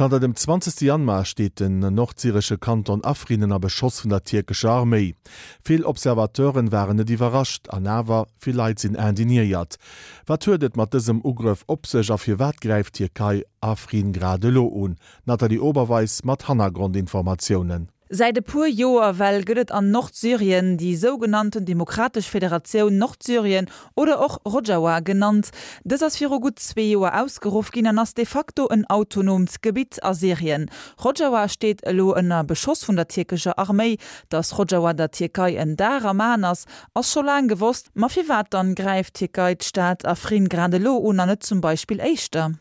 Zanter dem 20 Januar steet den nordsyresche Kanton Afrin ënner Beschoss vun der tierkescher Arméi. Vill Observateuren waren net iwwerrascht, an awer, vill Leit sinn indignéiert. Wat huet et mat dësem Ugrëff op sech a firwat gräift d'Tierkei Afrin grad elo un? D'Nathalie Oberweis mat Hannergrondinformatiounen. Säit e puer Joer well gëtt et an Nordsyrien déi sougenannten Demokratesch Federatioun Nordsyrien oder och Rojawa genannt. Dës ass viru gutt zwee Joer ausgeruff ginn an ass de facto en autonoomt Gebitt a Syrien. Rojawa steet elo ënner Beschoss vun der tierkescher Arméi. Datt Rojawa der Tierkei en Dar am Aen ass, ass scho laang gewosst. Ma firwat dann gräift d'Tierkei d'Stad Afrin grad elo un an net zum Beispill éischter?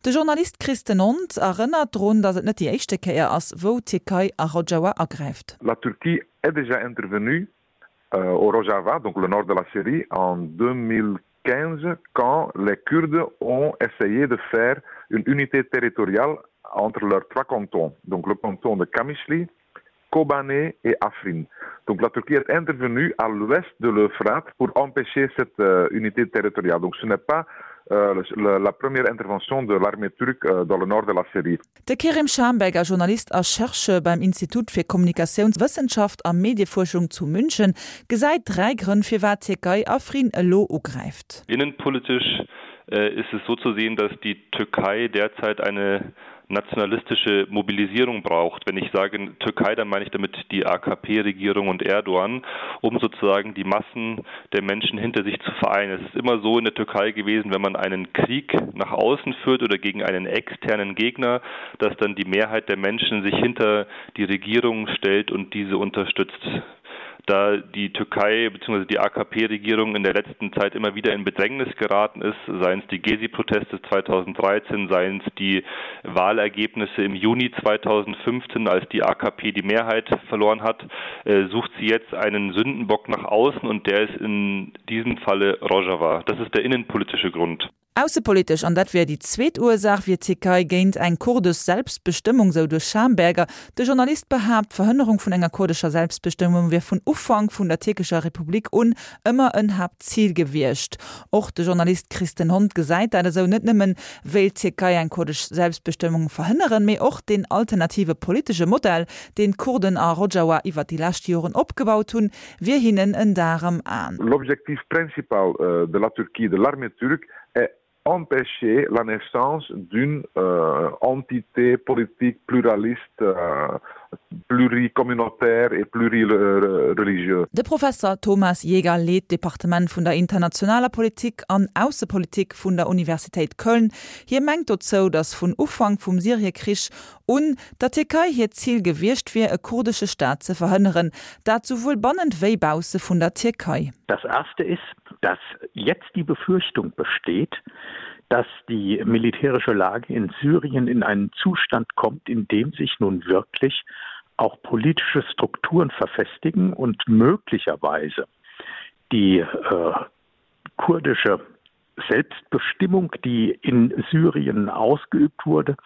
De Journalist Christen Ont erënnert drun, datt et net déi éischte Kéier ass, wou d'Tierkei a Rojava agräift. La Turquie est déjà intervenue au Rojava, donc le nord de la Syrie, en 2015 quand les Kurdes ont essayé de faire une unité territoriale entre leurs trois cantons, donc le canton de Kamichli, Kobané et Afrin. Donc la Turquie est intervenue à l'ouest de l'Euphrate pour empêcher cette euh, unité territoriale. Donc ce n'est pas euh, la première intervention de l'armée turque euh, dans le nord de la Syrie. De Kerim Schamberger, Journalist a Chercheur beim Institut fir Kommunikatiounswëssenschaft a Mediefuerschung zu München, gesäit dräi Grënn firwat d'Tierkei Afrin elo ugräift. Innenpolitisch ist es so zu sehen, dass die Türkei derzeit eine nationalistische Mobilisierung braucht. Wenn ich sage Türkei, dann meine ich damit die AKP-Regierung und Erdogan, um sozusagen die Massen der Menschen hinter sich zu vereinen. Es ist immer so in der Türkei gewesen, wenn man einen Krieg nach außen führt oder gegen einen externen Gegner, dass dann die Mehrheit der Menschen sich hinter die Regierung stellt und diese unterstützt da die Türkei bzw. die AKP-Regierung in der letzten Zeit immer wieder in Bedrängnis geraten ist, seien es die Gezi-Proteste 2013, seien es die Wahlergebnisse im Juni 2015, als die AKP die Mehrheit verloren hat, äh, sucht sie jetzt einen Sündenbock nach außen und der ist in diesem Falle Rojava. Das ist der innenpolitische Grund. Aussepolitesch, an dat wär déi zweet Ursaach, wier d'Tierkei géint eng kurdesch Selbstbestëmmung, sou de Schamberger. De Journalist behaapt, d'Verhënnerung vun enger kurdescher Selbstbestëmmung wier vun Ufank vun der tierkescher Republik un ëmmer en Haaptzil gewiescht. Och de Journalist Christen Hond gesäit dat esou, net nëmmen wéilt d'Tierkei eng kurdesch Selbstbestëmmung verhënneren, mee och deen alternative politesche Modell, deen d'Kurden a Rojawa iwwer déi lescht Joren opgebaut hunn, wier hinnen en Dar am Aen. L'objectif principal euh, de la Turquie, de l'armée turque, est empêcher la naissance d'une euh, entité politique pluraliste, euh, pluricommunautaire et plurireligieuse. De Professer Thomas Jäger leet d'Departement vun der internationaler Politik an Aussepolitik vun der Universitéit Köln. Hie mengt dozou, datt vun Ufank vum Syriekrich un der Tierkei hiert Zil gewiescht wier, e kurdesche Staat ze verhënneren, dat souwuel bannent wéi bausse vun der Tierkei. Das erste ist, dass jetzt die Befürchtung besteht, dass die militärische Lage in Syrien in einen Zustand kommt, in dem sich nun wirklich auch politische Strukturen verfestigen und möglicherweise die äh, kurdische Selbstbestimmung, die in Syrien ausgeübt wurde,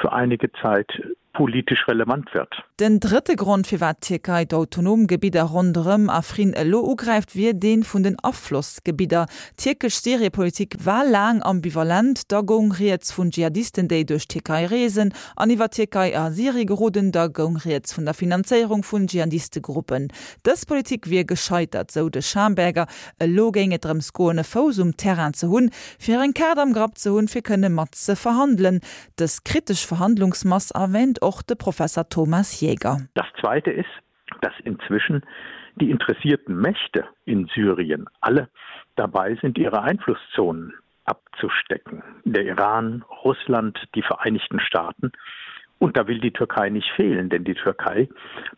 für einige Zeit politisch relevant wird. Den drëtte Grond, firwat d'Tierkei d'autonom Gebidder ronderëm Afrin elo ugräift, wier dee vun den Aflossgebidder. D'tierkesch Syriepolitik war laang ambivalent, da goung rieds vun Dschihadisten, déi duerch d'Tierkei reesen an iwwer d'Tierkei a Syrie geroden, da goung rieds vun der Finanzéierung vun Dschihadistegruppen. Dës Politik wier gescheitert, sou de Schamberger. Elo géing et drëms goen, e Fouss um Terrain ze hunn, fir eng Kaart am Grapp ze hunn, fir kënne mat ze verhandelen. Dës kritesch Verhandlungsmass erwähnt och de Professer Thomas Jäger. Das Zweite ist, dass inzwischen die interessierten Mächte in Syrien alle dabei sind, ihre Einflusszonen abzustecken. Der Iran, Russland, die Vereinigten Staaten. Und da will die Türkei nicht fehlen, denn die Türkei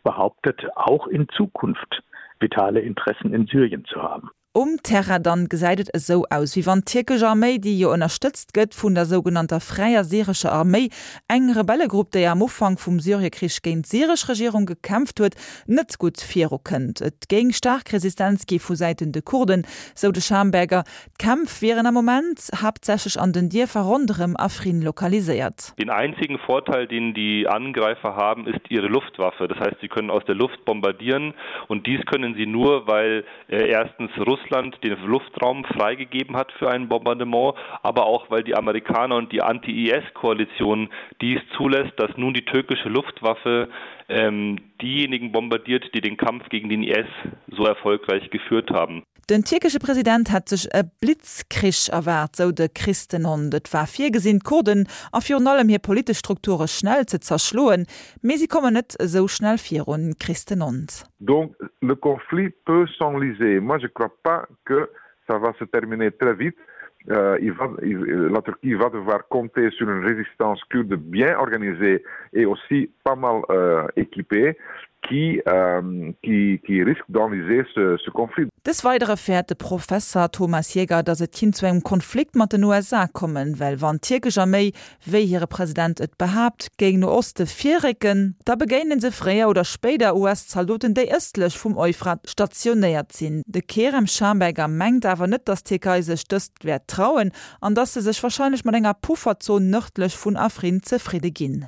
behauptet auch in Zukunft vitale Interessen in Syrien zu haben. Um Terrain dann gesäit et esou aus, wéi wann d'tierkesch Arméi, déi jo ënnerstëtzt gëtt vun der sougenannter Fräier Syrescher Arméi, eng Rebellegrupp, déi am Ufank vum Syriekrich géint d'syresch Regierung gekämpft huet, net gutt virukënnt. Et géing staark Resistenz gi vu Säiten de Kurden, sou de Schamberger. D'Kämpf wieren am Moment haaptsächlech an den Dierfer ronderëm Afrin lokaliséiert. Den einzigen Vorteil, den die Angreifer haben, ist ihre Luftwaffe. Das heißt, sie können aus der Luft bombardieren und dies können sie nur, weil äh, erstens Russland. Russland den Luftraum freigegeben hat für ein Bombardement, aber auch weil die Amerikaner und die Anti-IS-Koalition dies zulässt, dass nun die türkische Luftwaffe ähm, diejenigen bombardiert, die den Kampf gegen den IS so erfolgreich geführt haben. Den tierkesche President hätt sech e Blitzkrich erwaart, sou de Christenhond. Et war virgesinn, d'Kurden a virun allem hir politesch Strukture schnell ze zerschloen, mee si kommen net esou schnell virun. Christenhond. Donc le conflit peut s'enliser. Moi je crois pas que ça va se terminer très vite. Euh, il va, il, la Turquie va devoir compter sur une résistance kurde bien organisée et aussi pas mal euh, équipée qui, euh, qui, qui risque d'enliser ce, ce conflit. Des Weidere fäert de Professer Thomas Jäger, datt et kinnt zu engem Konflikt mat den USA kommen, well wann d'tierkesch Arméi, wéi hire President et behaapt, géing no Oste virrécken, da begéinen se fréier oder spéider US-Zaldoten, déi ëstlech vum Euphrat stationéiert sinn. De Kerem Schamberger mengt awer net, datt d'Tierkei sech dëst wäert trauen an datt se sech warscheinlech mat enger Pufferzon nërdlech vun Afrin zefridde ginn.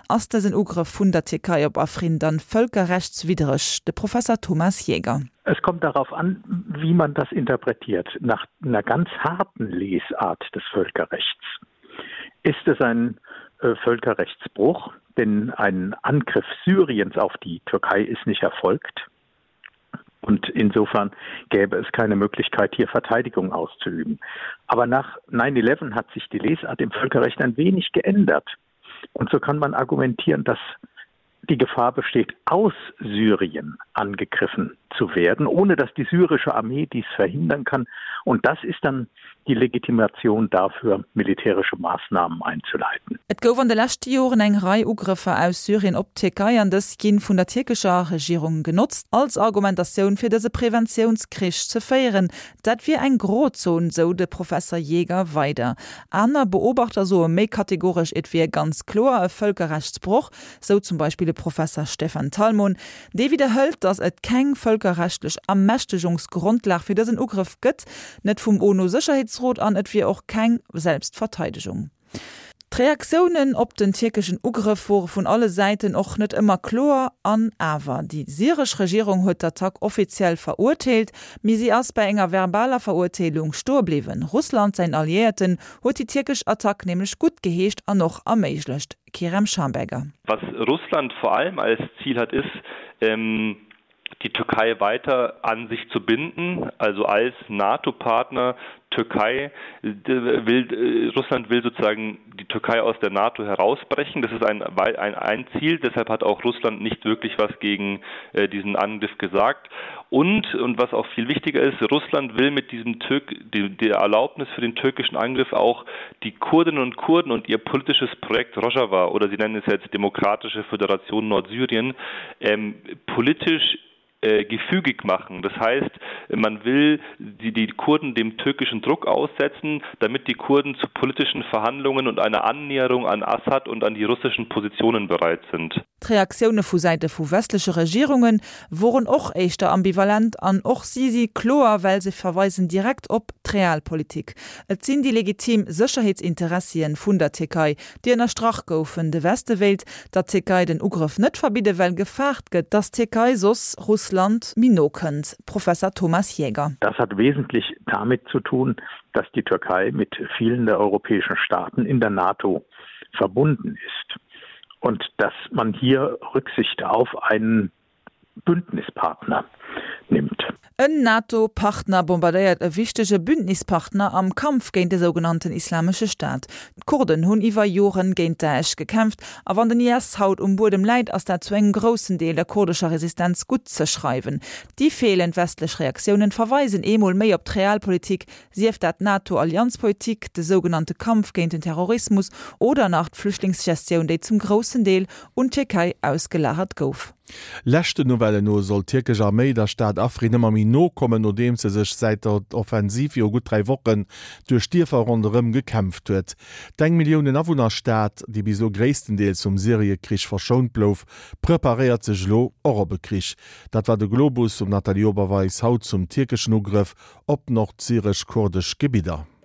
Ass dësen Ugrëff vun der Tierkei op Afrin dann völkerrechtswiddreg? De Professer Thomas Jäger. Es kommt darauf an, wie man das interpretiert. Nach einer ganz harten Lesart des Völkerrechts ist es ein äh, Völkerrechtsbruch, denn ein Angriff Syriens auf die Türkei ist nicht erfolgt. Und insofern gäbe es keine Möglichkeit, hier Verteidigung auszuüben. Aber nach 9-11 hat sich die Lesart im Völkerrecht ein wenig geändert. Und so kann man argumentieren, dass die Gefahr besteht, aus Syrien angegriffen zu werden, ohne dass die syrische Armee dies verhindern kann. Und das ist dann die Legitimation dafür, militärische Maßnahmen einzuleiten. Et gouf an de leschte Joren eng Rei Ugrëffer aus Syrien op d'Tierkei an dës ginn vun der tierkescher Regierung genotzt als Argumentatioun fir dëse Preventiounskrich ze féieren. Dat wier eng Grozon, sou de Professer Jäger weider. Aner Beobachter soe méi kategoresch, et wier ganz kloer e Vëlkerrechtsbroch, sou zum Beispill de Professer Stefan Talmon. Dee widderhëlt, datt et keng vëlkerrechtlech Ermächtegungsgrondlag fir dësen Ugrëff gëtt, net vum UNO-Sécherheetsrot an et wier och keng Selbstverteidegung. D'Reaktiounen op den tierkeschen Ugrëff wore vun alle Säiten och net ëmmer kloer. An awer, déi syresch Regierung huet d'Attack offiziell verurteelt, mee si ass bei enger verbaler Verurteelung stoe bliwwen. Russland, säin Alliéierten, huet déi tierkesch Attack nämlech guttgeheescht an och erméiglecht. Kerem Schamberger. Was Russland vor allem als Ziel hat, ist, ähm, die Türkei weiter an sich zu binden, also als NATO-Partner Türkei will äh, Russland will sozusagen die Türkei aus der NATO herausbrechen. Das ist ein, ein, ein Ziel, deshalb hat auch Russland nicht wirklich was gegen äh, diesen Angriff gesagt. Und und was auch viel wichtiger ist, Russland will mit diesem Türk die, der Erlaubnis für den türkischen Angriff auch die Kurdinnen und Kurden und ihr politisches Projekt Rojava oder sie nennen es jetzt Demokratische Föderation Nordsyrien ähm, politisch äh, gefügig machen. Das heißt, man will die, die Kurden dem türkischen Druck aussetzen, damit die Kurden zu politischen Verhandlungen und einer Annäherung an Assad und an die russischen Positionen bereit sind. D'Reaktioune vu Säite vu westleche Regierunge woren och éischter ambivalent an och si si kloer, well se verweisen direkt op d'Realpolitik. Et sinn déi legitim Sécherheetsinteressien vun der Tierkei, déi ënnerstrach goufen. De Weste wéilt der Tierkei den Ugrëff net verbidde well gefaart gëtt, datt d'Tierkei soss Russland méi no kënnt. Professor Thomas Jäger. Das hat wesentlich damit zu tun, dass die Türkei mit vielen der europäischen Staaten in der NATO verbunden ist und dass man hier Rücksicht auf einen Bündnispartner nimmt. En NATO-Partner bombardéiert e wichtege Bündnispartner am Kampf géint de sougenannten Islamesche Staat. D'Kurden hunn iwwer Joren géint Daesh gekämpft a wann den IS haut um Buedem läit, ass dat zu engem groussen Deel der kurdescher Resistenz gutt ze schreiwen. Déi feelend westlech Reaktiounen verweisen eemol méi op d'Realpolitik, Sief dat d'NATO-Allianzpolitik, de sougenannte Kampf géint den Terrorismus oder nach d'Flüchtlingsgestioun, déi zum groussen Deel un d'Tierkei ausgelagert gouf. Leschten Nouvellen no soll d'tierkesch Arméi der Stad Afrin ëmmer méi no kommen, nodeems se sech säit der Offensiv viru gutt 3 Wochen duerch d'Dierfer ronderëm gekämpft huet. D'eng Milliounen Awunner-Stad, déi bis elo gréisstendeels vum Syrie-Krich verschount blouf, preparéiert sech elo och op e Krich. Dat war de Globus vum Nathalie Oberweis haut zum tierkeschen Ugrëff op nordsyresch-kurdesch Gebidder.